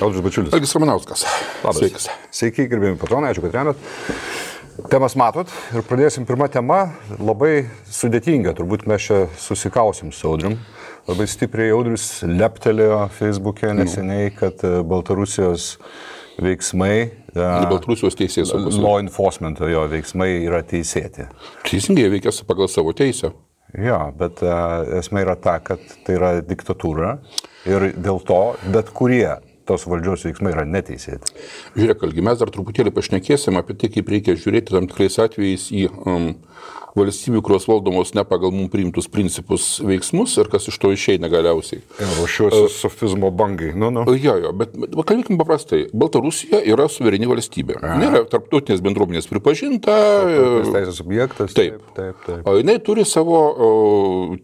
Audrius Bačiulis. Algis Ramanauskas. Labas. Sveikas. Sveiki, gerbėjami patronai, ačiū, kad remiat. Temas matot ir pradėsim pirmą temą, labai sudėtinga, turbūt mes čia susikausim su Audrium. Labai stipriai Audrius leptelėjo Facebook'e neseniai, kad Baltarusijos veiksmai, Baltarusijos teisės law enforcement jo veiksmai yra teisėti. Teisingai veikia pagal savo teisę. Jo, bet esmė yra ta, kad tai yra diktatūra ir dėl to bet kurie tos valdžios veiksmai yra neteisėti. Žiūrėk, Algi, mes dar truputėlį pašnekėsim apie tai, kaip reikia žiūrėti tam tikrais atvejais į valstybių, kurios valdomos ne pagal mums priimtus principus veiksmus ir kas iš to išeina galiausiai. Ruošiuosi sofizmo bangai. Jo, bet kalbėkim paprastai. Baltarusija yra suvereni valstybė. Nėra tarptautinės bendruomenės pripažinta. Teisės objektas. Taip. O jinai turi savo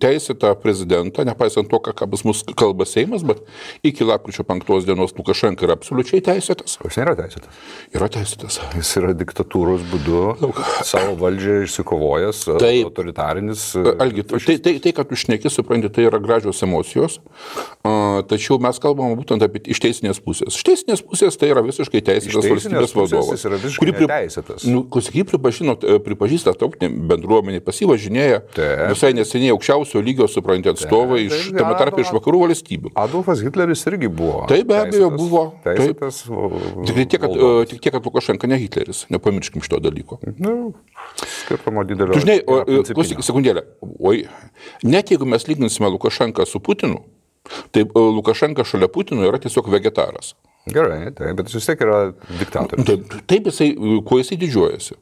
teisėtą prezidentą, nepaisant to, ką pas mus kalba Seimas, bet iki lapkričio 5 dienos Lukašenka yra absoliučiai teisėtas. Jis nėra teisėtas. Yra teisėtas. Jis yra diktatūros būdu savo valdžią išsikovojęs. Autoritarinis. Algi, tai, kad tu šneki, supranti, tai yra gražios emocijos, tačiau mes kalbame būtent apie iš teisinės pusės. Iš teisinės pusės tai yra visiškai teisėtas valstybės vadovas. Jis yra visiškai neteisėtas. Pripažįsta tautinė bendruomenė, pasivažinėja visai neseniai aukščiausio lygio, supranti, atstovai iš tame tarpe iš vakarų valstybių. Adolfas Hitleris irgi buvo. Tai be abejo buvo. Teisėtas. Tik tiek, kad Lukašenka ne Hitleris. Nepamirškim šito dalyko. Skirtumo didelio. Žinai, klausyk sekundėlę. Net jeigu mes lyginsime Lukašenką su Putinu, tai Lukašenka šalia Putino yra tiesiog vegetaras. Gerai, bet jis vis tiek yra diktatorius. Taip, kuo jisai didžiuojasi.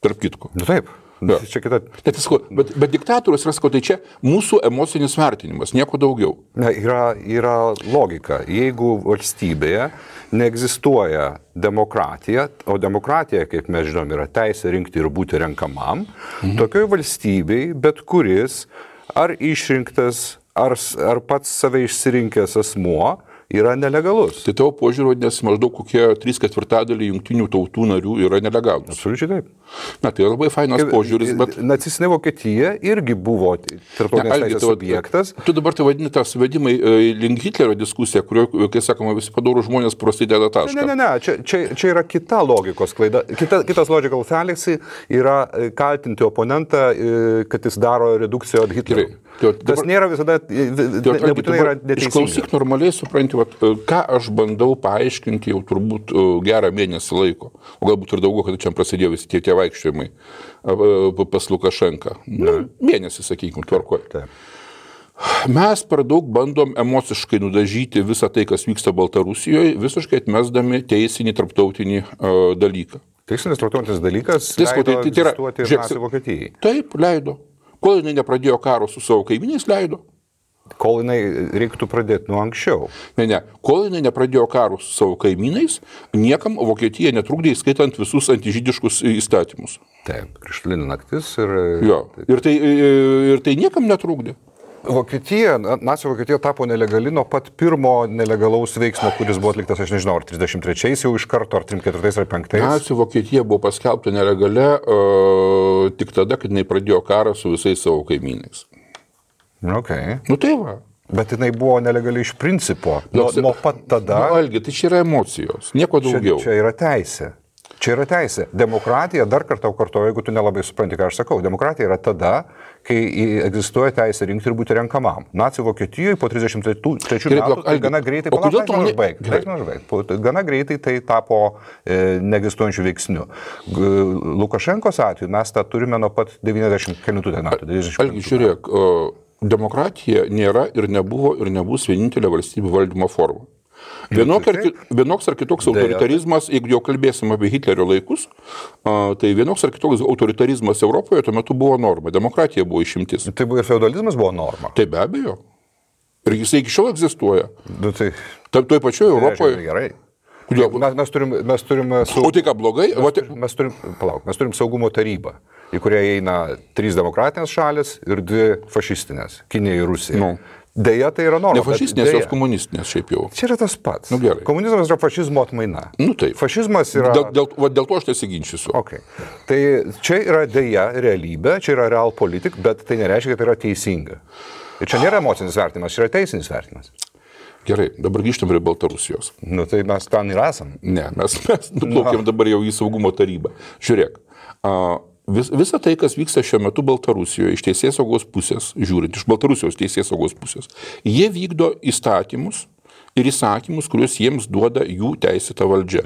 Tarp kitko. Taip. Ja. Čia kita... Bet diktatorius yra, tai čia mūsų emocinis vertinimas, nieko daugiau. Yra logika. Jeigu valstybėje neegzistuoja demokratija, o demokratija, kaip mes žinom, yra teisė rinkti ir būti renkamam, tokioj valstybei bet kuris ar išrinktas, ar pats save išsirinkęs asmuo yra nelegalus. Tai tavo požiūrį, nes maždaug kokie 3/4 jungtinių tautų narių yra nelegalus. Absoliučiai taip. Na, tai labai fainas požiūris, bet... Nacistinė Vokietija irgi buvo tarptautinės teisės subjektas. Tu dabar tai vadini tą suvedimą link Hitlerio diskusiją, kurioje, kai sakoma, visi padorų žmonės prasideda tašką. Ne, čia yra kita logikos klaida. Kitas logical fallacy yra kaltinti oponentą, kad jis daro redukciją od Hitlerio. Tas nėra visada, nebūtinai yra neteisinga. Išklausyk normaliai, supranti, ką aš bandau paaiškinti jau turbūt gerą mėnesį laiko, o galbūt ir daugiau, kad čia prasidėjo visi tie vaikščiojimai pas Lukašenką. Mėnesį, sakykime, tvarkoje. Mes per daug bandom emociškai nudažyti visą tai, kas vyksta Baltarusijoje, visiškai atmesdami teisinį tarptautinį dalyką. Teisinis tarptautinis dalykas leido egzistuoti ir Nacių Vokietijai. Taip, leido. Kol jinai nepradėjo karo su savo kaimynais, leido. Kol jinai reiktų pradėti nuo anksčiau. Ne. Kol jinai nepradėjo karų su savo kaimynais, niekam Vokietija netrukdė, įskaitant visus antižydiškus įstatymus. Taip, Krištolinė naktis ir... Jo, ir tai niekam netrukdė. Nacių Vokietija tapo nelegali nuo pat pirmo nelegalaus veiksmo, kuris buvo atliktas, aš nežinau, ar 33-ais jau iš karto, ar 34-ais, ar 5-ais. Nacių Vokietija buvo paskelbta nelegalia tik tada, kad jinai pradėjo karą su visais savo kaimynais. Okay. Tai va. Bet jinai buvo nelegali iš principo. Nuo pat tada... Algi, tai čia yra emocijos, nieko daugiau. Čia yra teisė. Demokratija, dar kartą kartoju, jeigu tu nelabai supranti, ką aš sakau, demokratija yra tada, kai egzistuoja teisė rinkti ir būti renkamam. Nacių Vokietijoje po 33 metų gana greitai... Gana greitai tai tapo neegzistuojančių veiksnių. Lukašenkos atveju mes tą turime nuo pat 90 metų. Algi, žiūrėk, demokratija nėra ir nebuvo ir nebus vienintelė valstybių valdymo forma. Vienoks ar kitoks autoritarizmas, jeigu jau kalbėsim apie Hitlerio laikus, tai vienoks ar kitoks autoritarizmas Europoje tuo metu buvo norma. Demokratija buvo išimtis. Tai ir feudalizmas buvo norma. Tai be abejo. Ir jisai iki šiol egzistuoja. Toj pačioje Europoje. Gerai. Mes turime O tai ką, blogai? Mes turim saugumo tarybą, į kurią eina 3 demokratinės šalis ir 2 fašistinės - Kinija ir Rusija. Deja, tai yra norma. Ne fašistinės, jos komunistinės šiaip jau. Čia yra tas pats. Gerai. Komunizmas yra fašizmo atmaina. Taip. Fašizmas yra... Dėl to aš nesiginčysiu. Okay. Tai čia yra deja realybė, čia yra real politik, bet tai nereiškia, kad tai yra teisinga. Ir čia nėra emocinis vertinimas, čia yra teisinis vertinimas. Gerai, dabar grįžtam prie Baltarusijos. Nu, tai mes ten ir esam. Ne, mes nuplaukėm dabar jau į saugumo tarybą. Žiūrėk, visa tai, kas vyksta šiuo metu Baltarusijoje, iš teisėsaugos pusės, žiūrint, iš Baltarusijos teisėsaugos pusės, jie vykdo įstatymus ir įsakymus, kuriuos jiems duoda jų teisėta valdžia.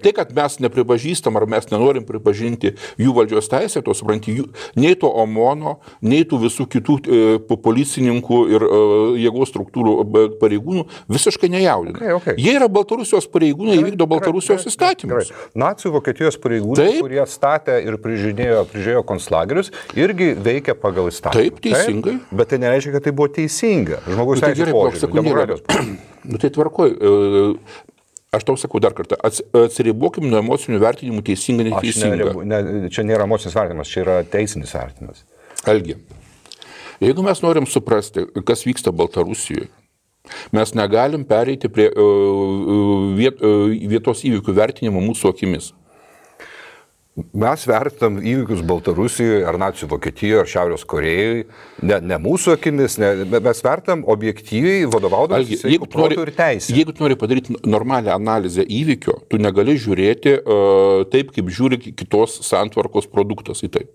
Tai, kad mes nepripažįstam ar mes nenorim pripažinti jų valdžios teisę, to supranti, nei to OMONo, nei tų visų kitų policininkų ir jėgos struktūrų pareigūnų visiškai nejaudina. Okay. Jie yra Baltarusijos pareigūnai, jie vykdo Baltarusijos įstatymus. Nacių Vokietijos pareigūnai, kurie statė ir prižiūrėjo konцlagerius, irgi veikia pagal įstatymą. Taip, teisingai. Taip, bet tai nereiškia, kad tai buvo teisinga. Žmogaus teisės požiūrį, demokratijos požiūrį. Nu tai tvarkoj, aš tau sakau dar kartą, atsiribokim nuo emocinių vertinimų teisinga, neteisinga. Čia nėra emocinis vertinimas, čia yra teisinis vertinimas. Algi, jeigu mes norim suprasti, kas vyksta Baltarusijoje, mes negalim pereiti prie vietos įvykių vertinimo mūsų akimis. Mes vertinam įvykius Baltarusijoje, ar nacių Vokietijoje, ar Šiaurės Korejoje, ne mūsų akimis, mes vertinam objektyviai vadovaudamas sveiko proto ir teisė. Jeigu tu nori padaryti normalią analizę įvykio, tu negali žiūrėti taip, kaip žiūri kitos santvarkos produktas į tai.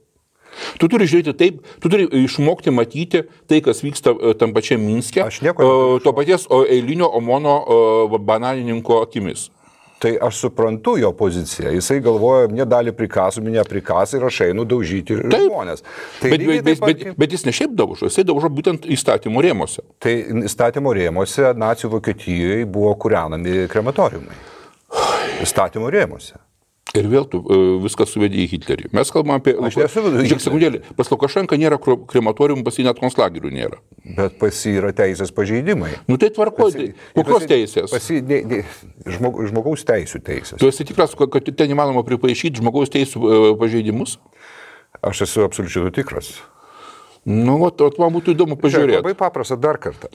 Tu turi žiūrėti taip, tu turi išmokti matyti tai, kas vyksta tam pačiam Minske, to paties eilinio OMONo bananininko akimis. Tai aš suprantu jo poziciją. Jisai galvoja, mane dalį prikasų, mane prikasą ir aš einu daužyti žmonės. Tai bet jis ne šiaip daužo, jisai daužo būtent įstatymo rėmose. Tai įstatymo rėmose nacių Vokietijoje buvo kūrenami krematoriumai. Įstatymo rėmose. Ir vėl tu viskas suvedė į Hitlerį. Mes kalbam apie... Žiūrėk, sekundėlį, pas Lukašenką nėra krematorium, pas jį net konclagerių nėra. Bet pas jį yra teisės pažeidimai. Nu tai tvarkoj, kokios teisės? Žmogaus teisų teisės. Tu esi tikras, kad ten įmanoma pripaišyti žmogaus teisų pažeidimus? Aš esu absoliučiai tikras. Nu, man būtų įdomu pažiūrėti. Labai paprasta dar kartą.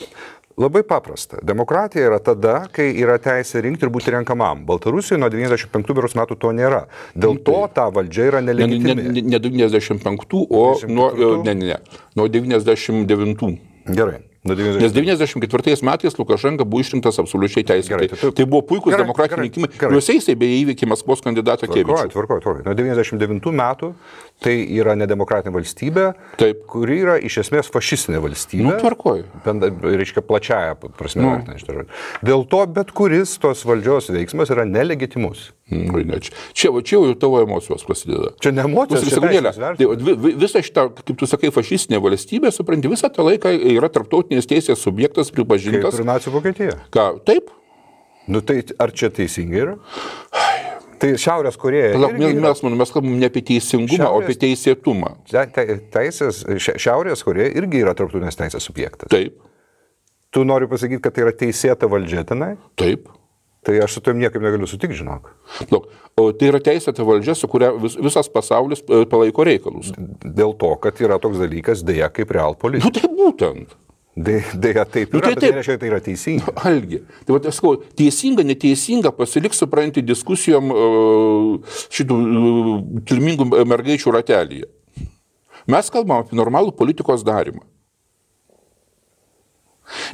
Labai paprasta. Demokratija yra tada, kai yra teisė rinkti ir būti renkamam. Baltarusijoje nuo 95 metų to nėra. Dėl to ta valdžia yra nelegitimi. Ne 95, o nuo 99. Gerai. Nes 94 metais Lukašenka buvo išrinktas absoliučiai teisėtai. Tai buvo puikus demokratiniai rinkimai. Juose jisai beje įveikė Maskvos kandidatą Kevičių. Tvarkoj. Nuo 99 metų tai yra nedemokratinė valstybė, kuri yra iš esmės fašistinė valstybė. Nu, tvarkoj. Reiškia plačiaja prasme. Dėl to bet kuris tos valdžios veiksmas yra nelegitimus. Čia jau tavo emocijos prasideda. Čia ne emocijos, čia teisės vertinimas. Visą šitą, kaip tu sakai, fašistinė valstybė, supranti, visą tą laiką yra tarptautinės teisės subjektas pripažintas. Kaip ir nacių Vokietija. Ką, taip? Nu tai ar čia teisingai yra? Tai Šiaurės Koreja. Mes kalbam ne apie teisingumą, o apie teisėtumą. Šiaurės Koreja irgi yra tarptautinės teisės subjektas. Taip. Tu nori pasakyti, kad tai yra teisėta valdžia tenai? Taip. Tai aš su tom niekaip negaliu sutikti, žinok. O tai yra teisėta valdžia, su kuria visas pasaulis palaiko reikalus. Dėl to, kad yra toks dalykas dėja kaip realpolitika. Nu tai būtent. Dėja taip yra, bet tai reiškia, tai yra teisinga. Algi. Tai aš sakau, teisinga, neteisinga, pasiliks, supranti, diskusijom šitų kilmingų mergaičių ratelyje. Mes kalbam apie normalų politikos darimą.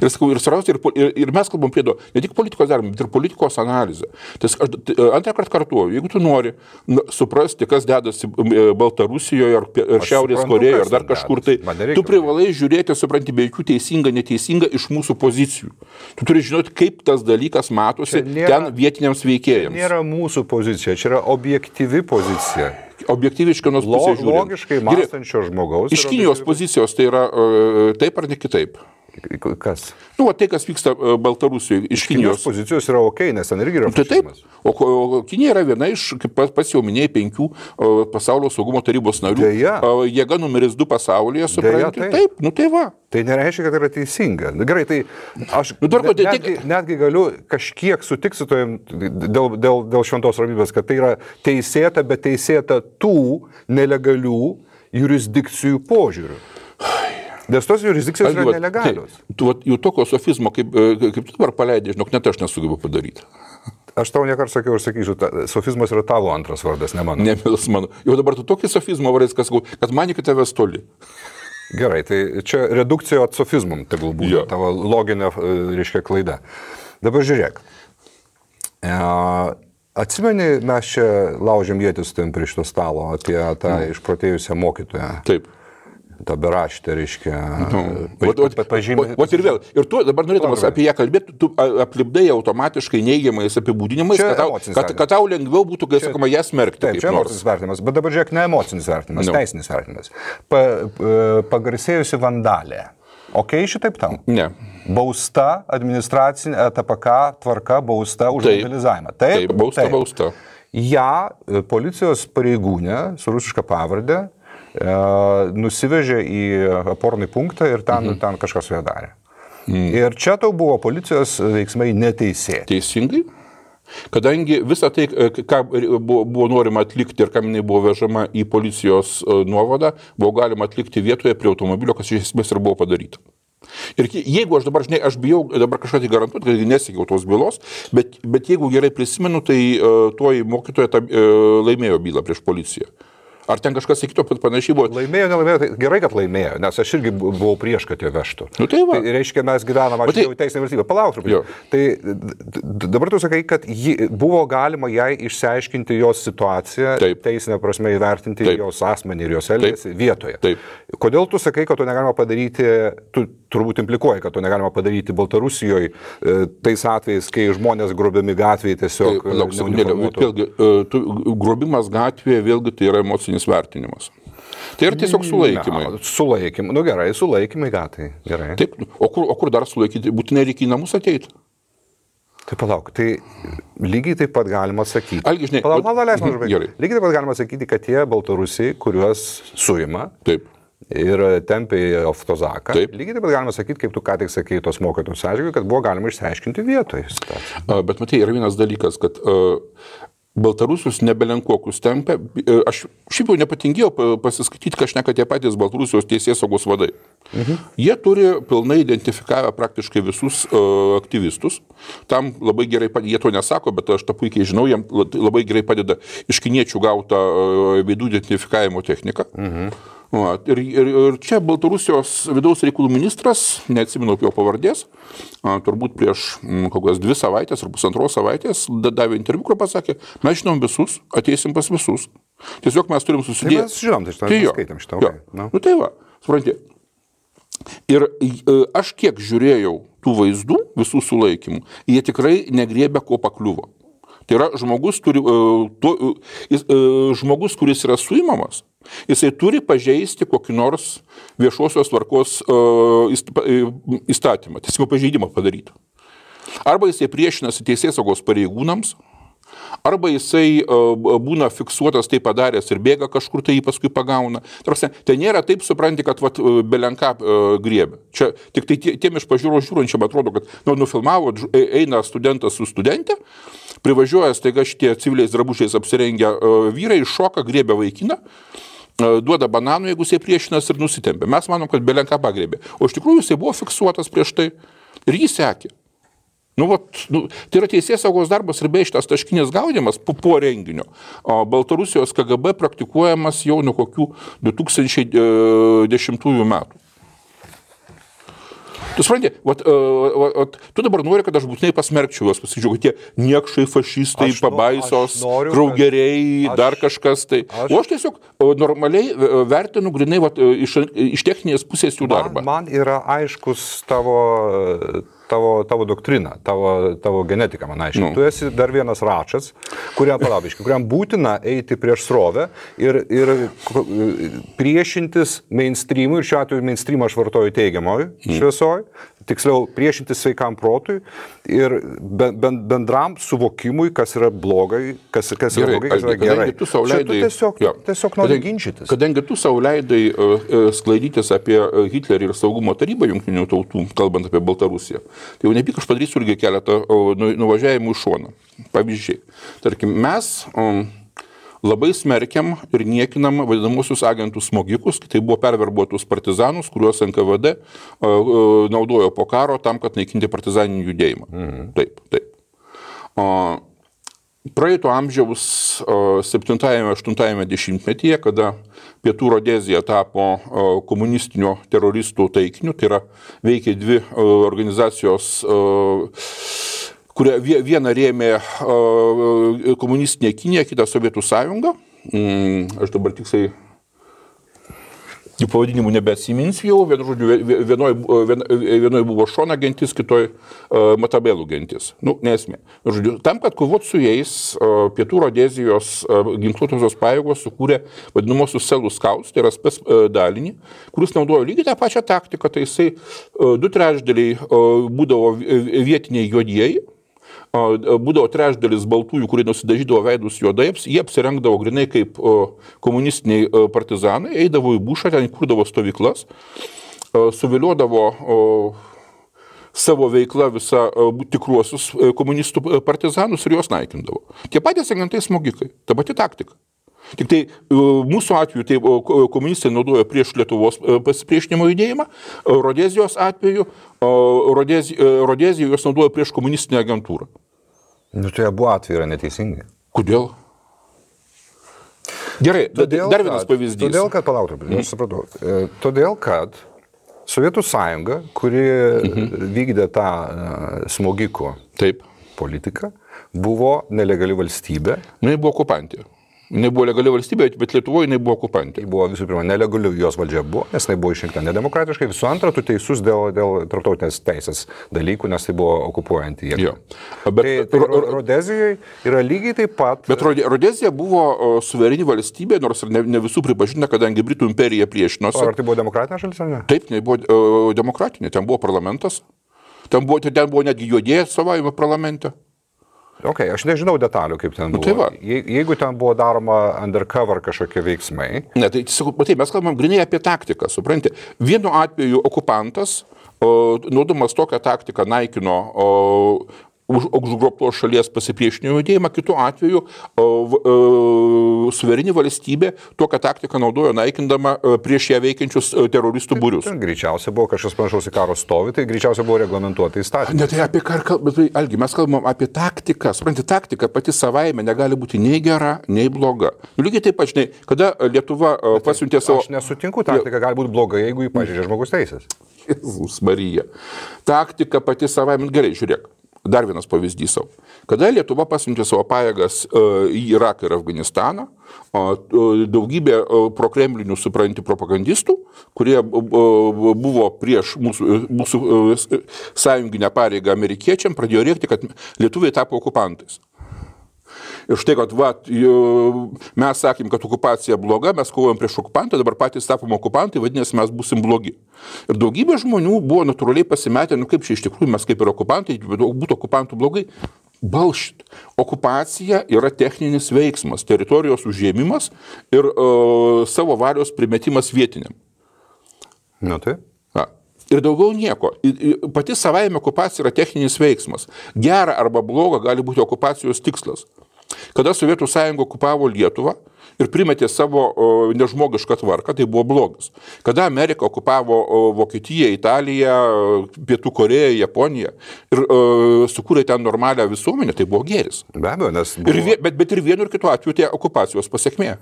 Ir sakau, ir mes kalbam prie to, ne tik politikos darimą, bet ir politikos analizę. Tai antrą kartą kartuoju, jeigu tu nori suprasti, kas dedasi Baltarusijoje ar Šiaurės Korejoje ar dar kažkur, tai tu privalai žiūrėti, supranti, be jokių teisinga, neteisinga iš mūsų pozicijų. Tu turi žinoti, kaip tas dalykas matosi ten vietiniams veikėjams. Nėra mūsų pozicija, čia yra objektyvi pozicija. Objektyviai iš kinos pusės žiūrint. Logiškai mąstančio žmogaus. Iš Kinijos pozicijos tai yra taip ar ne kitaip? Kas? Nu, tai, kas vyksta Baltarusijoje iš Kinijos pozicijos yra okei, nes ten irgi yra fašizmas. Taip, o Kinija yra viena iš, kaip pats jau minėjai, 5 pasaulio saugumo tarybos narių. Jėga numeris 2 pasaulyje, supranti. Taip, nu tai va. Tai nereiškia, kad yra teisinga. Gerai, tai aš netgi galiu kažkiek sutikti su tojim dėl šventos ramybės, kad tai yra teisėta, bet teisėta tų nelegalių jurisdikcijų požiūrių. Nes tos jurisdikcijos yra nelegalios. Jau tokio sofizmo, kaip tu dabar paleidai, žinok, net aš nesugebu padaryti. Aš tau nekart sakiau ir sakysiu, sofizmas yra tavo antras vardas, ne mano. Ne, mano. Jau dabar tu tokį sofizmo vardas, kad mani, kad tavęs toli. Gerai, tai čia redukcijo atsofizmum, tegul būtų tavo loginė, reiškia, klaida. Dabar žiūrėk. Atsimeni, mes čia laužėm ietis tam prie šito stalo apie tą išprotėjusią mokytoją. Taip. Ta beraštė, reiškia. Vat ir vėl. Ir tu dabar norėdamas apie ją kalbėti, tu aplipdai automatiškai neigiamais apibūdinimais, kad tau lengviau būtų, kai sakoma, ją smerkti. Taip, čia emocinis vertinimas, bet dabar žiūrėk, ne emocinis vertinimas, teisinis vertinimas. Pagarsėjusi vandalė. Ok, šitaip tau? Ne. Bausta, administracinė TPK tvarka, bausta už vandalizavimą. Taip, bausta. Ja, policijos pareigūnė su rusiška pavardė nusivežė į apornį punktą ir ten kažkas su ją darė. Ir čia tau buvo policijos veiksmai neteisėti. Teisingai. Kadangi visą tai, ką buvo norima atlikti ir kam jinai buvo vežama į policijos nuovadą, buvo galima atlikti vietoje prie automobilio, kas iš esmės ir buvo padaryta. Ir jeigu aš dabar, žinai, aš bijau dabar kažką tai garantuoti, kad nesiekiau tos bylos, bet jeigu gerai prisimenu, tai toji mokytoja laimėjo bylą prieš policiją. Ar ten kažkas sakytų, kad panašiai buvo? Laimėjo, nelaimėjo, tai gerai, kad laimėjo, nes aš irgi buvau prieš, kad jie vežtų. Tai va. Tai reiškia, mes gyvenam, aš jau teisinė valstybė. Palauk truputį. Tai dabar tu sakai, kad buvo galima jai išsiaiškinti jos situaciją, teisinę prasme įvertinti jos asmenį ir jos elgesį vietoje. Taip. Kodėl tu sakai, kad to negalima padaryti, tu turbūt implikuoji, kad to negalima padaryti Baltarusijoje tais atvejais, kai žmonės grobiami gatvėje tiesiog... Vėlgi, grobimas gatvėje vėlgi tai yra emocinis vertinimas. Tai yra tiesiog sulaikymai. Sulaikymai, nu gerai, sulaikymai gatai, gerai. Taip, o kur dar sulaikyti? Būtinai reikia į namus ateiti. Tai palauk, tai lygiai taip pat galima sakyti. Algi, žinai, lygiai taip pat galima sakyti, kad tie Baltarusiai, kuriuos suima, taip. Ir tempė į Oftozaką. Lygiai taip pat galima sakyti, kaip tu ką tik sakei tos mokytojus atžvilgiu, kad buvo galima išsiaiškinti vietoje. Bet matai, yra vienas dalykas, kad Baltarusius nebelenkokus tempė. Aš šiaip jau nepatingėjau pasiskaityti, ką šneka tie patys Baltarusijos teisėsaugos vadai. Jie turi pilnai identifikavę praktiškai visus aktyvistus. Tam labai gerai padeda, jie to nesako, bet aš tą puikiai žinau, jiems labai gerai padeda iš kiniečių gautą veidų identifikavimo techniką. Ir čia Baltarusijos vidaus reikalų ministras, neatsimenu jo pavardės, turbūt prieš kokias 2 savaitės ar 1,5 savaitės davė interviu, kur pasakė, mes žinom visus, ateisim pas visus. Tiesiog mes turim susidėti. Tai mes žinom, tai skaitam šitą. Nu tai va, supranti. Ir aš kiek žiūrėjau tų vaizdų, visų sulaikymų, jie tikrai negriebė, ko pakliuvo. Tai yra žmogus, kuris yra suimamas, jisai turi pažeisti kokį nors viešosios tvarkos įstatymą, tiesiog pažeidimą padaryti. Arba jisai priešinasi teisėsaugos pareigūnams, arba jisai būna fiksuotas, tai padaręs ir bėga kažkur, tai jį paskui pagauna. Tai nėra taip, supranti, kad belenką griebė. Čia tik tai tiem iš pažiūros žiūrančiam atrodo, kad nufilmavo, eina studentas su studentė, privažiuoja staiga šitie civiliais drabužiais apsirengę vyrai, šoka, griebia vaikiną, duoda bananų, jeigu jisai priešinas ir nusitempia. Mes manom, kad belenką pagrėbė. O iš tikrųjų jisai buvo fiksuotas prieš tai ir jį sekė. Tai yra teisėsaugos darbas ir bei šitas taškinis gaudymas po renginio. Baltarusijos KGB praktikuojamas jau nuo kokių 2010 metų. Tu supranti, tu dabar nori, kad aš būtinai pasmerkčiau juos, pasakyčiau, kad tie niekšai, fašistai, pabaisos, kraugeriai, dar kažkas tai. O aš tiesiog normaliai vertinu grinai iš techninės pusės jų darbą. Man yra aiškus tavo doktrina, tavo genetika, man aiškiai. Tu esi dar vienas račas, kuriam būtina eiti prieš srovę ir priešintis mainstreamui, ir šiuo atveju mainstreamą aš vartoju teigiamoj šviesoj, tiksliau priešintis sveikam protui ir bendram suvokimui, kas yra blogai, kas yra blogai, kas yra gerai. Tu tiesiog nori ginčytis. Kadangi tu sau leidai sklaidytis apie Hitlerį ir saugumo tarybą jungtinių tautų, kalbant apie Baltarusiją, tai jau nepyk aš padarysiu irgi keletą nuvažiavimų į šoną. Pavyzdžiai. Tarkim, mes labai smerkiam ir niekinam vadinamosius agentų smogikus, tai buvo perverbuotus partizanus, kuriuos NKVD naudojo po karo tam, kad naikinti partizaninį judėjimą. Taip. praeito amžiaus 7-8 dešimtmetyje, kada Pietų Rodezija tapo komunistinio teroristų taikiniu, tai yra veikia dvi organizacijos, kurie vieną rėmė komunistinė Kinija, kitą Sovietų sąjunga. Aš dabar tiksliai jų pavadinimų nebeatsiminsiu jau, vienoje buvo Šona gentis, kitoje Matabelų gentis. Nesmė. Žodžiu, tam, kad kovot su jais, Pietų Rodezijos ginkluotosios pajėgos sukūrė vadinamosius Selų Scouts, tai yra spec dalinį, kuris naudojo lygiai tą pačią taktiką, tai jisai 2/3 būdavo vietiniai juodieji, būdavo 1/3 baltųjų, kurie nusidažydavo veidus juodai, jie apsirengdavo grinai kaip komunistiniai partizanai, eidavo į bušą, ten kurdavo stovyklas, suviliodavo savo veiklą visą tikruosius komunistų partizanus ir juos naikindavo. Tie patys agentai smogikai, ta pati taktika. Tik tai mūsų atveju tai komunistai naudojo prieš Lietuvos pasipriešinimo judėjimą, Rodezijos atveju Rodezija juos naudojo prieš komunistinę agentūrą. Tai abu atvejai yra neteisingi. Kodėl? Gerai, dar vienas pavyzdys. Todėl, kad, aš supratau, todėl, kad Sovietų sąjunga, kuri vykdė tą smogikų politiką, buvo nelegali valstybė. Jis buvo okupantė. Jis buvo legali valstybė, bet Lietuvoje jis buvo okupantė. Buvo visų pirma nelegali jos valdžia buvo, nes jis buvo išrinkta nedemokratiškai. Visų antra, tu teisus dėl tarptautinės teisės dalykų, nes tai buvo okupuojanti jėga. Tai Rodezijai yra lygiai taip pat. Bet Rodezija buvo suvereni valstybė, nors ir ne visų pripažinta, kadangi Britų imperija priešinosi. Ar tai buvo demokratinė šalis ar ne? Taip, tai buvo demokratinė. Ten buvo parlamentas. Ten buvo netgi juodieji atstovavimo parlamente. Aš nežinau detalių, kaip ten buvo. Tai jeigu ten buvo daroma undercover kažkokie veiksmai. Ne, tai mes kalbam grinai apie taktiką, supranti. Vienu atveju okupantas, naudodamas tokią taktiką, naikino užgrobtos šalies pasipriešinimo judėjimą, kitu atveju suvereni valstybė tokią taktiką naudojo naikindama prieš ją veikiančius teroristų būrius. Greičiausiai buvo kažkas panašaus į karo stovį, tai greičiausiai buvo reglamentuota įstatymai. Ne, tai apie bet Algi, mes kalbam apie taktiką. Supranti, taktika pati savaime negali būti nei gera, nei bloga. Lygiai taip pat, žinai, kada Lietuva pasiuntė savo... Aš nesutinku, taktika gali būti bloga, jeigu jį pažeidžia žmogus teisės. Jėzus Marija. Taktika pati savaime, gerai, žiūrėk. Dar vienas pavyzdys savo. Kada Lietuva pasiuntė savo pajėgas į Iraką ir Afganistaną, daugybė prokremlinių, supranti, propagandistų, kurie buvo prieš mūsų sąjunginę pareigą amerikiečiam, pradėjo rėkti, kad lietuviai tapo okupantais. Ir štai, kad mes sakėm, kad okupacija bloga, mes kovojam prieš okupantą, dabar patys tapom okupantai, vadinasi, mes būsim blogi. Ir daugybė žmonių buvo natūraliai pasimetę, kaip čia iš tikrųjų mes kaip ir okupantai, būtų okupantų blogai. Balšit. Okupacija yra techninis veiksmas, teritorijos užėmimas ir savo valios primetimas vietiniam. Tai. Ir daugiau nieko. Pati savaime okupacija yra techninis veiksmas. Gera arba bloga gali būti okupacijos tikslas. Kada Sovietų sąjunga okupavo Lietuvą ir primetė savo nežmogišką tvarką, tai buvo blogis. Kada Amerika okupavo Vokietiją, Italiją, Pietų Koreją, Japoniją ir sukūrė ten normalią visuomenę, tai buvo gėris. Be abejo, nes buvo... bet ir vienu ir kitu atveju tai okupacijos pasiekmė.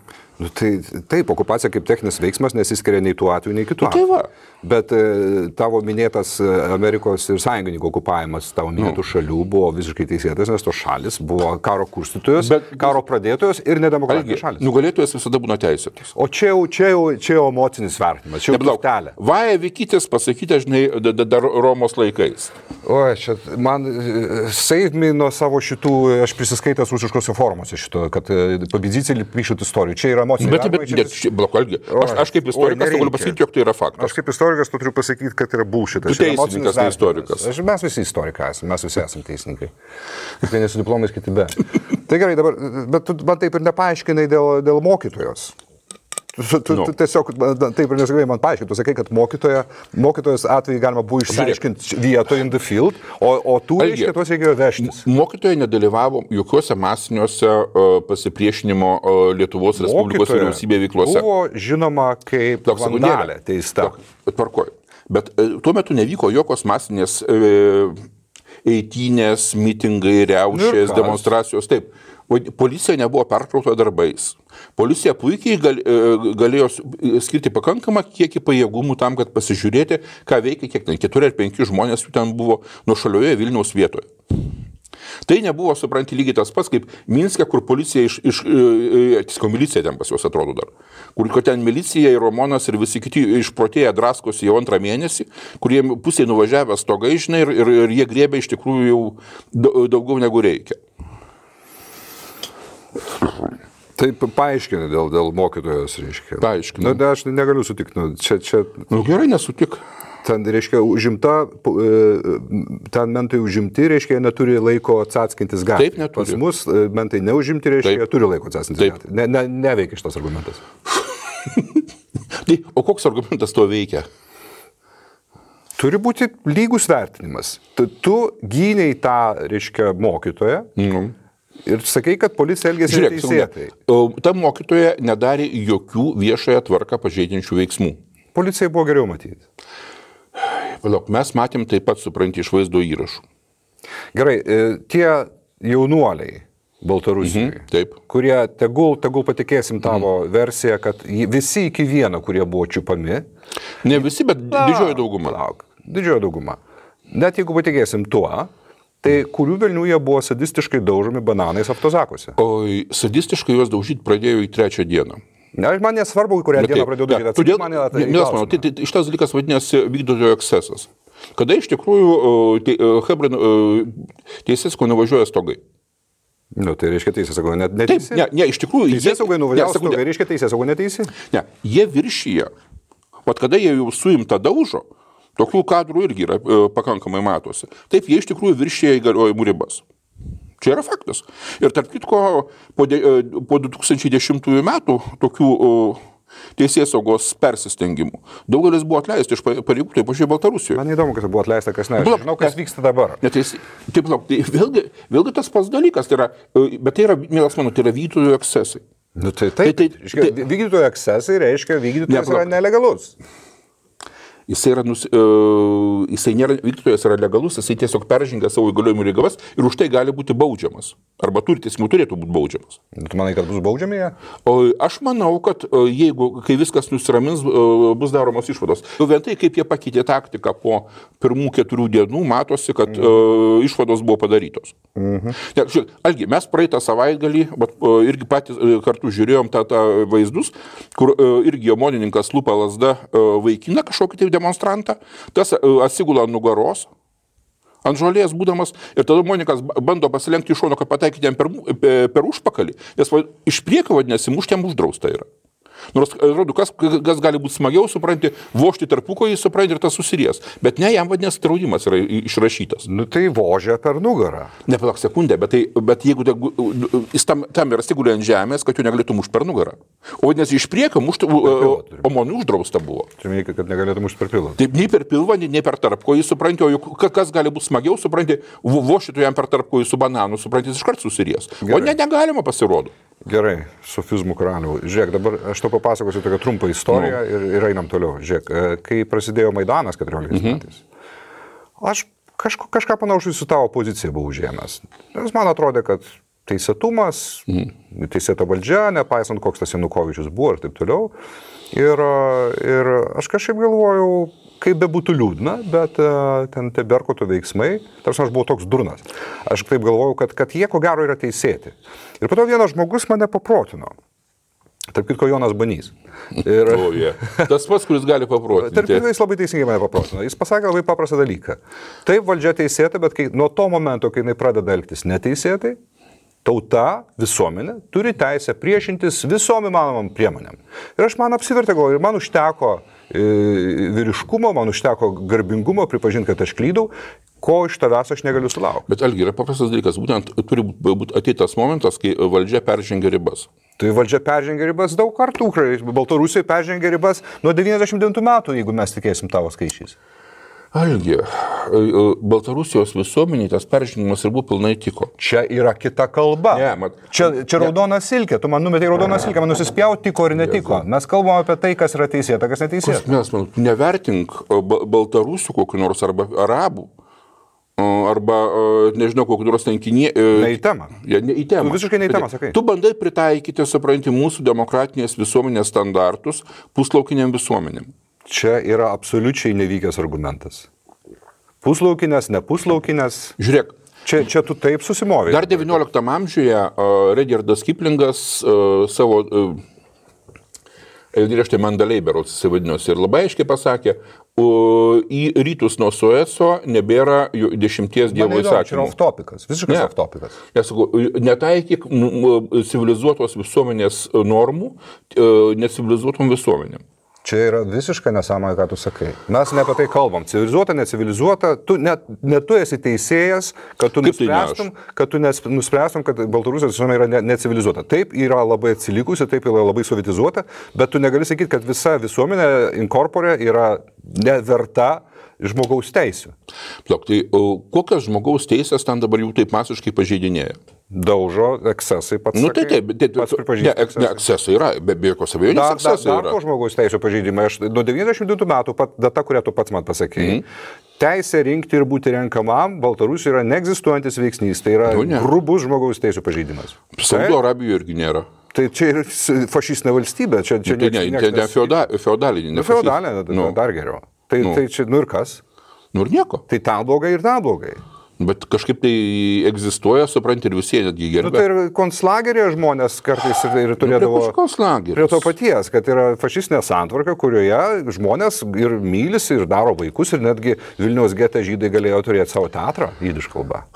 Taip, okupacija kaip techninis veiksmas nesiskiria nei tuo atveju, nei kitu atveju. Bet tavo minėtas Amerikos ir sąjungininkų okupavimas tavo minėtų šalių buvo visiškai teisėtas, nes tos šalis buvo karo kurstytojos, karo pradėtojos ir nedemokratinės šalis. Nugalėtojas visada būna teisėtas. O čia jau emocinis vertinimas, čia jau turtelė. Vaja Vykytis pasakyti, žinai, dar Romos laikais. Čia man save nuo savo šitų, aš prisiskaitęs rusiškose formuose šito, kad pavyzdžiai pišut istorijų. Čia yra emociniai vertinimai. Aš kaip istorikas galiu pasakyti, jog tai yra faktas. Aš kaip istorikas turiu pasakyti, kad yra bullshitas. Tu teisininkas, ne istorikas. Mes visi istorikai esame, mes visi esame teisininkai. Vieni su diplomais, kiti be. Tai gerai, dabar, bet tu man taip ir nepaaiškinai dėl mokytojos. Tu tiesiog taip ir nesugebėjai man paaiškinti. Tu sakai, kad mokytojos atveju galima buvo išsiaiškinti vietoje in the field, o tu reiškia, tuos reikėjo vežtis. Mokytojai nedalyvavo jokiuose masiniuose pasipriešinimo Lietuvos Respublikos vyriausybėje veiklose. Buvo žinoma kaip vandalė teista. Tvarkoju. Bet tuo metu nevyko jokios masinės eitynės, mitingai, riaušės, demonstracijos. Taip. Policija nebuvo perkrauta darbais. Policija puikiai galėjo skirti pakankamą kiekį pajėgumų tam, kad pasižiūrėti, ką veikia kiek ten 4 ar 5 žmonės jų ten buvo nuošalioje Vilniaus vietoje. Tai nebuvo, supranti, lygiai tas pats, kaip Minske, kur policija milicija ten pas juos atrodo dar, kur ten milicija ir Romonas ir visi kiti išprotėję draskosi jau 2 mėnesį, kurie pusėje nuvažiavę stogai, žinai, ir jie griebė iš tikrųjų jau daugiau negu reikia. Taip, paaiškini dėl mokytojos, reiškia. Paaiškini. Aš negaliu sutikti. Čia... Gerai, nesutik. Ten, reiškia, ten mentai užimti, reiškia, neturi laiko atsaskintis gatvėje. Taip, neturi. Pas mus mentai neužimti, reiškia, turi laiko atsaskintis gatvėje. Neveikia šitas argumentas. O koks argumentas to veikia? Turi būti lygus vertinimas. Tu gyniai tą, reiškia, mokytoją. Ir sakai, kad policija elgėsi neteisėtai. Ta mokytoja nedarė jokių viešąją tvarką pažeidžiančių veiksmų. Policijai buvo geriau matyti. Palauk, mes matėm taip pat, supranti, iš vaizdo įrašų. Gerai, tie jaunuoliai Baltarusijoje, kurie tegul patikėsim tavo versiją, kad visi iki vieno, kurie buvo čiupami. Ne visi, bet didžioji dauguma. Didžioji dauguma. Net jeigu patikėsim tuo, tai kurių velnių jie buvo sadistiškai daužomi bananais autozakuose? O sadistiškai juos daužyti pradėjo į 3 dieną. Man nesvarbu, kurią dieną pradėjau daryti. Todėl šitas dalykas vadinasi vykdytojo ekscesas. Kada iš tikrųjų teisėsauga nuvažiuoja stogai. Tai reiškia teisėsauga neteisi? Ne, iš tikrųjų... Teisėsaugai nuvažiuoja stogai, reiškia teisėsauga neteisi? Ne, jie viršyje. Vat kada jie jau suimta daužo, tokių kadrų irgi yra pakankamai matosi. Taip, jie iš tikrųjų viršyje įgaliojimų ribas. Čia yra faktas. Ir tarp kitko, po 2010 metų tokių teisėsaugos persistengimų daugelis buvo atleisti iš pareigų, taip pažiūrėjau Baltarusijoje. Man įdomu, kas buvo atleista, kas ne. Žinau, kas vyksta dabar. Taip, vėlgi tas pats dalykas, bet tai yra, mielas mano, tai yra vykdytojų ekscesai. Vykdytojų ekscesai reiškia, vykdytojas yra nelegalus. Jisai nėra vykdytojas, yra legalus, jisai tiesiog peržengia savo įgaliojimų ribas ir už tai gali būti baudžiamas. Arba turėtų būti baudžiamas. Tu manai, kad bus baudžiami jie? Aš manau, kad kai viskas nusiramins, bus daromos išvados. Vien tai, kaip jie pakeitė taktiką po pirmų 4 dienų, matosi, kad išvados buvo padarytos. Algi, mes praeitą savaitgalį irgi patys kartu žiūrėjom tą vaizdus, kur irgi omonininkas lupa lazda vaikina kažkokį tai demonstrantą, tas atsigula nugaros, ant žolės būdamas, ir tada Monikas bando pasilenkti iš šono, kad pataikyti jam per užpakalį, nes iš priekio, vadinasi, mušti jam uždrausta yra. Nors, atrodo, kas gali būti smagiau, supranti, vožti tarpuko, jis supranti ir tas susiries. Bet ne, jam vadinasi draudimas yra išrašytas. Tai vožia per nugarą. Nepalauk sekundę, bet jeigu jis tam yra sigulė ant žemės, kad jų negalėtų mušti per nugarą. O vadinasi, iš priekio mušti omonų uždrausta buvo. Čia minėjai, kad negalėtų mušti per pilvą. Taip, nei per pilvą, nei per tarpko, jis supranti, o kas gali būti smagiau, supranti, vožti jam per tarpko su bananu, supranti, jis iškart susiries. O negalima pasirodo. Gerai, sofizmų karalių. Žiūrėk, dabar aš to papasakosiu tokią trumpą istoriją ir einam toliau. Žiūrėk, kai prasidėjo Maidanas 14 metais, aš kažką panašų su tavo pozicija buvau užėmęs. Nes man atrodė, kad teisėtumas, teisėta valdžia, nepaisant koks tas Janukovičius buvo ir taip toliau. Ir aš kažkaip galvojau, kaip bebūtų liūdna, bet ten tie Berkoto veiksmai, tarsi aš buvau toks durnas. Aš taip galvojau, kad jie ko gero yra teisėti. Ir po to vienas žmogus mane paprotino. Tarp kitko Jonas Banys. Tas pats, kuris gali paprotinti. Tarp kitko jis labai teisingai mane paprotino. Jis pasakė labai paprastą dalyką. Taip, valdžia teisėta, bet nuo to momento, kai jinai pradeda elgtis neteisėtai, tauta, visuomenė, turi teisę priešintis visom įmanomam priemonėm. Ir aš man apsivertė galvoju, ir man užteko vyriškumo, man užteko garbingumo pripažinti, kad aš klydau, ko iš tavęs aš negaliu sulaukti. Bet Algi, yra paprastas dalykas, būtent turi būti ateitas momentas, kai valdžia peržengia ribas. Tai valdžia peržengia ribas daug kartų, Baltarusija peržengia ribas nuo 99 metų, jeigu mes tikėsim tavo skaičiais. Algi, Baltarusijos visuomeniai tas peržengimas ir buvo pilnai tiko. Čia yra kita kalba. Čia raudona silkė, tu man numetei raudoną silkę, man nusispjauti tiko ir netiko. Mes kalbame apie tai, kas yra teisėta, kas neteisėta. Nevertink Baltarusių kokių nors arba arabų. arba, nežinau, kokiu nors tenkinė. Ne į temą. Ne į temą. Tu visiškai ne į temą sakai. Tu bandai pritaikyti, supranti, mūsų demokratinės visuomenės standartus puslaukiniam visuomenėm. Čia yra absoliučiai nevykęs argumentas. Puslaukinės, ne puslaukinės. Žiūrėk. Čia tu taip susimovai. Dar 19 amžiuje Rudyardas Kiplingas savo eilėraštį Mandalay berods įsivadinosi ir labai aiškiai pasakė, į rytus nuo Sueco nebėra 10 dievo įsakymų. Čia yra off-topikas, visiškai off-topikas. Aš sakau, netaikyk civilizuotos visuomenės normų necivilizuotom visuomenėm. Čia yra visiškai nesąmonė, ką tu sakai. Mes ne apie tai kalbam. Civilizuota, necivilizuota. Ne tu esi teisėjas, kad tu nuspręstum, kad Baltarusijos visuomenė yra necivilizuota. Taip yra labai atsilikusi, taip yra labai sovietizuota, bet tu negali sakyti, kad visa visuomenė inkorporė yra neverta žmogaus teisių. Plok, tai kokios žmogaus teisės ten dabar jau taip masiškai pažeidinėja? Daužo, ekscesai pats. Nu, pats pripažįsti. Ne, ekscesai yra, be jokios abejonės ekscesai yra. Dar žmogaus teisų pažeidimai. Nuo 92 metų, data, kurią tu pats man pasakėjai, teisė rinkti ir būti renkamam Baltarusijoje yra neegzistuojantis veiksnys. Tai yra grubus žmogaus teisų pažeidimas. Saudo Arabijoje irgi nėra. Tai čia yra fašistinė valstybė. Ne feodalinė. Feodalinė, dar geriau. Tai čia, ir kas? Ir nieko. Tai ten blogai ir ten blogai. Bet kažkaip tai egzistuoja, supranti, ir visi netgi gerbė. Tai ir konclagerėje žmonės kartais ir turėdavo prie to paties, kad yra fašistinė santvarka, kurioje žmonės ir mylisi, ir daro vaikus, ir netgi Vilniaus gete žydai galėjo turėti savo teatrą, jidiš kalba.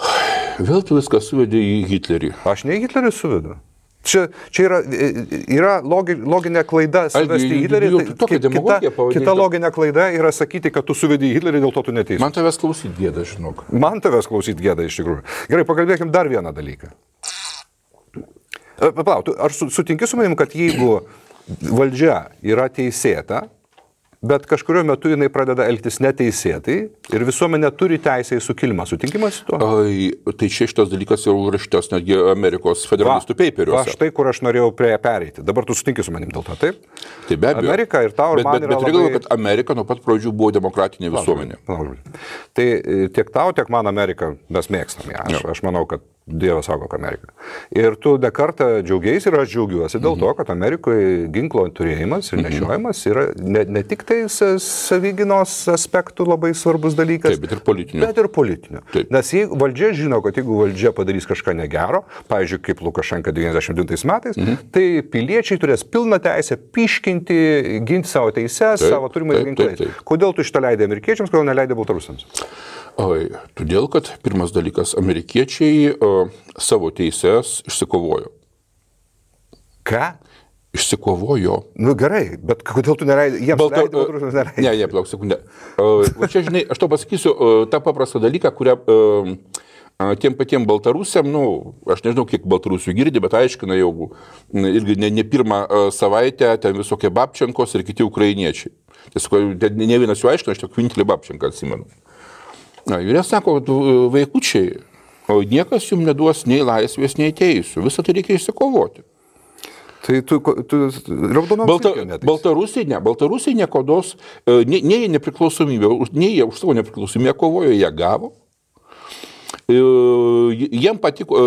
Vėl tu viską suvedė į Hitlerį. Aš ne į Hitlerį suvedu. Čia yra loginė klaida suvesti į Hitlerį. Kita loginė klaida yra sakyti, kad tu suvedi į Hitlerį, dėl to tu neteisus. Man tavęs klausyti gėda, žinok. Man tavęs klausyti gėda, iš tikrųjų. Gerai, pakalbėkim dar vieną dalyką. Palauk, ar sutinki su manim, kad jeigu valdžia yra teisėta, bet kažkurio metu jinai pradeda elgtis neteisėtai ir visuomenė turi teisę į sukilimą. Sutinkimas su tuo? Tai šitas dalykas jau rašytas netgi Amerikos federalistų paperiuose. Va, štai kur aš norėjau prie pereiti. Dabar tu sutinki su manim dėl to, taip? Tai be abejo. Amerika ir tau ir man yra labai... Bet kad Amerika nuo pat pradžių buvo demokratinė visuomenė. Tai tiek tau, tiek man Ameriką mes mėgstam. Aš manau, kad Dievas saugo Ameriką. Ir tu ne kartą džiaugiais ir aš džiaugiuosi dėl to, kad Amerikoje ginklo turėjimas ir nešiojimas yra ne tik tai savyginos aspektų labai svarbus dalykas, taip, bet ir politinių. Nes jeigu valdžia žino, kad jeigu valdžia padarys kažką negero, pavyzdžiui, kaip Lukašenka 99 metais, tai piliečiai turės pilną teisę piškinti, ginti savo teises, savo turimais ginklais. Kodėl tu šitą leidai amerikiečiams, kodėl neleidai baltarusiams? Todėl, kad pirmas dalykas, amerikiečiai savo teises išsikovojo. Ką? Išsikovojo. Nu gerai, bet kodėl tu neleidai? Jiems leidai, baltarusiams neleidai. Ne, plauk sekundę. Čia, žinai, aš tau pasakysiu tą paprastą dalyką, kurią tiem patiem baltarusiam, aš nežinau, kiek baltarusių girdi, bet aiškina jau irgi ne pirmą savaitę ten visokie Babčenkos ir kiti ukrainiečiai. Tiesiog ne vienas jų aiškina, aš tik vienintelį Babčenką atsimenu. Ir jie sako, vaikučiai, niekas jums neduos nei laisvės, nei teisių. Visą tai reikia išsikovoti. Tai tu Baltarusiai niekodos, nei nepriklausomybė, nei jie už savo nepriklausomybę kovojo, jie gavo. Jiem patiko,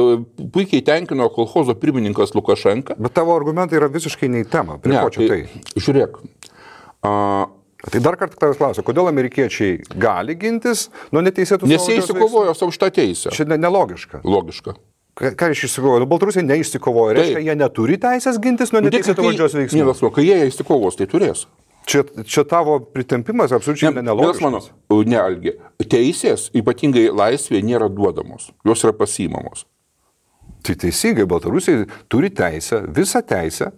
puikiai tenkino kolchozo pirmininkas Lukašenka. Bet tavo argumentai yra visiškai ne į temą. Prie ko čia tai? Žiūrėk. Tai dar kartą tavęs klausiu, kodėl amerikiečiai gali gintis nuo neteisėtų... Nes jie įsikovojo savo šitą teisę. Čia nelogiška. Logiška. Ką iš įsikovojo? Baltarusiai neišsikovojo. Reiškia, jie neturi teisės gintis nuo neteisėtų valdžios veiksmų. Nevasmo, kai jie įsikovos, tai turės. Čia tavo pritempimas absoliučiai nelogiškas. Ne, Algi. Teisės, ypatingai laisvė, nėra duodamos. Jos yra pasiimamos. Tai teisingai, Baltarusiai turi teisę, visą teisę,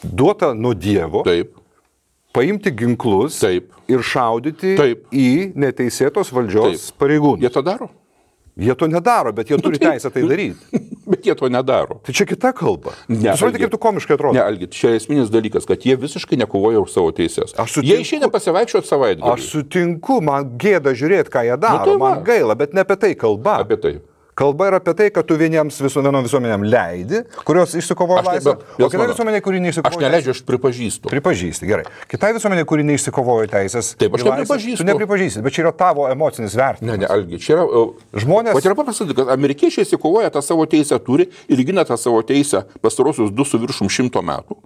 duotą nuo Dievo. Taip. Paimti ginklus ir šaudyti į neteisėtos valdžios pareigūnus. Jie to daro? Jie to nedaro, bet jie turi teisę tai daryti. Bet jie to nedaro. Tai čia kita kalba. Supranti, kaip tu komiškai atrodo. Ne, Algi, čia esminis dalykas, kad jie visiškai nekovoja už savo teises. Jie išeina pasivaikščioti savaitgalį. Aš sutinku, man gėda žiūrėti, ką jie daro. Man gaila, bet ne apie tai kalba. Apie tai. Kalba yra apie tai, kad tu vienom visuomenėm leidi, kurios išsikovoja laisvę, o kitai visuomenė, kuri neišsikovoja... Aš neleidžiu, aš pripažįstu. Pripažįsti, gerai. Kitai visuomenė, kuri neišsikovoja teisės... Taip, aš nepripažįstu. Tu nepripažįsti, bet čia yra tavo emocinis vertinimas. Ne, Algi, čia yra... Žmonės... O tai yra paprastas, kad amerikiečiai įsikovoja tą savo teisę turi ir gina tą savo teisę pastarosius 2,5 metų.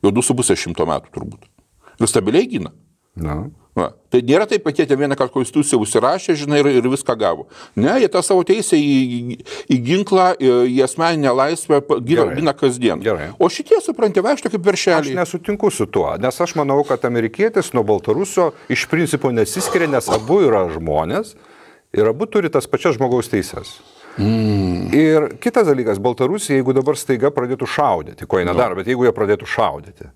Jau 2,5 metų turbūt. Ir stabiliai gina. Na. Va. Tai nėra taip, kad jie vieną kartą konstituciją užsirašė, žinai, ir viską gavo. Ne, jie tą savo teisę į ginklą, į asmeninę laisvę gina kasdien. Gerai. O šitie, supranti, vaikšto kaip veršeliai. Aš nesutinku su tuo, nes aš manau, kad amerikietis nuo baltarusio iš principo nesiskiria, nes abu yra žmonės ir abu turi tas pačias žmogaus teises. Ir kitas dalykas, Baltarusija, jeigu dabar staiga pradėtų šaudyti, ko jie nedaro, bet jeigu jie pradėtų šaudyti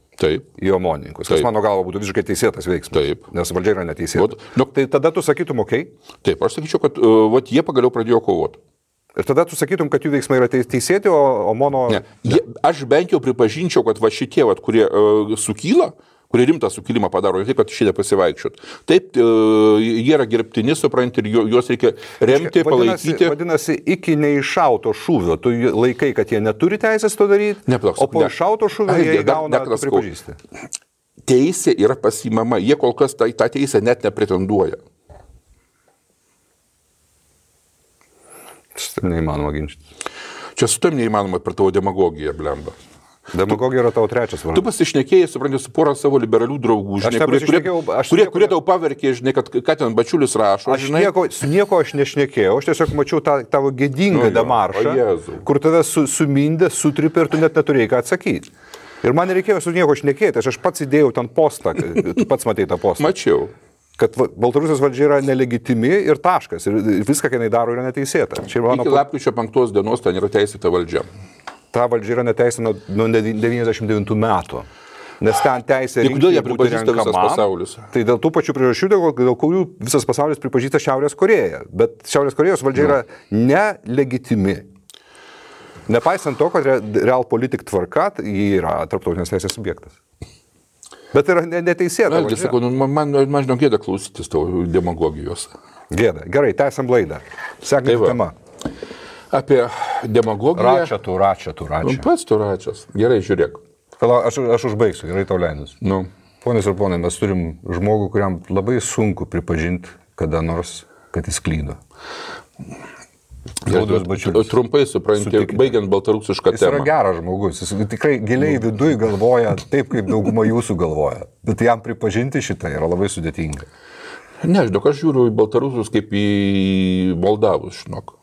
į omonininkus, tas mano galva būtų visiškai teisėtas veiksmas, nes valdžia yra neteisėta. Tai tada tu sakytum, okei? Taip, aš sakyčiau, kad jie pagaliau pradėjo kovoti. Ir tada tu sakytum, kad jų veiksmai yra teisėti, o mono... Ne. Aš bent jau pripažinčiau, kad šitie, kurie sukyla, kurie rimtą sukilimą padaro, taip, kad šitie pasivaikščiot. Taip, jie yra gerbtini, supranti, ir juos reikia remti, palaikyti. Vadinasi, iki neiššauto šūvio, tu laikai, kad jie neturi teisės to daryti, o po iššauto šūvio jie gauna pripažįsti. Teisė yra pasimama, jie kol kas tą teisę net nepretenduoja. Šitam neįmanoma ginčyti. Čia su tam neįmanoma per tavo demagogiją, blemba. Demagogija yra tavo trečias vardas. Tu pasišnekėjai, supranti, su porą savo liberalių draugų, žinai, kurie tau paverkė, žinai, kad ką ten Bačiulis rašo. Su nieko aš nešnekėjau, aš tiesiog mačiau tavo gėdingą demaršą, kur tave sumindė, sutripė ir tu net neturėjai ką atsakyti. Ir man nereikėjo su nieko šnekėti, aš pats įdėjau ten postą, tu pats matei tą postą. Mačiau. Kad Baltarusijos valdžia yra nelegitimi ir taškas, ir viską, ką jinai daro, yra neteisėta. Iki lapkričio 5 dienos ten yra teisėta valdžia. Ta valdžia yra neteisė nuo 99 metų. Nes ten teisė rinkti būti renkamam. Tai dėl tų pačių priežasčių, dėl kurių visas pasaulis pripažįsta Šiaurės Korėją. Bet Šiaurės Korėjos valdžia yra nelegitimi. Nepaisant to, kad realpolitik tvarka, ji yra tarptautinės teisės subjektas. Bet yra neteisėta. Vėlgi, sakau, man žinau gėda klausytis tavo demagogijos. Gėda. Gerai, tęsiam laidą. Sekanti tema. Apie demagogiją. Račia. Pats tu račias. Gerai, žiūrėk. Aš užbaigsiu, gerai tau leidus. Ponios ir ponai, mes turim žmogų, kuriam labai sunku pripažinti kada nors, kad jis klydo. Trumpai supranti, baigiant baltarusišką temą. Jis yra geras žmogus, jis tikrai giliai viduj galvoja taip, kaip dauguma jūsų galvoja. Bet jam pripažinti šitą yra labai sudėtinga. Ne, žinok, aš žiūriu į baltarusius kaip į moldavus, žinok.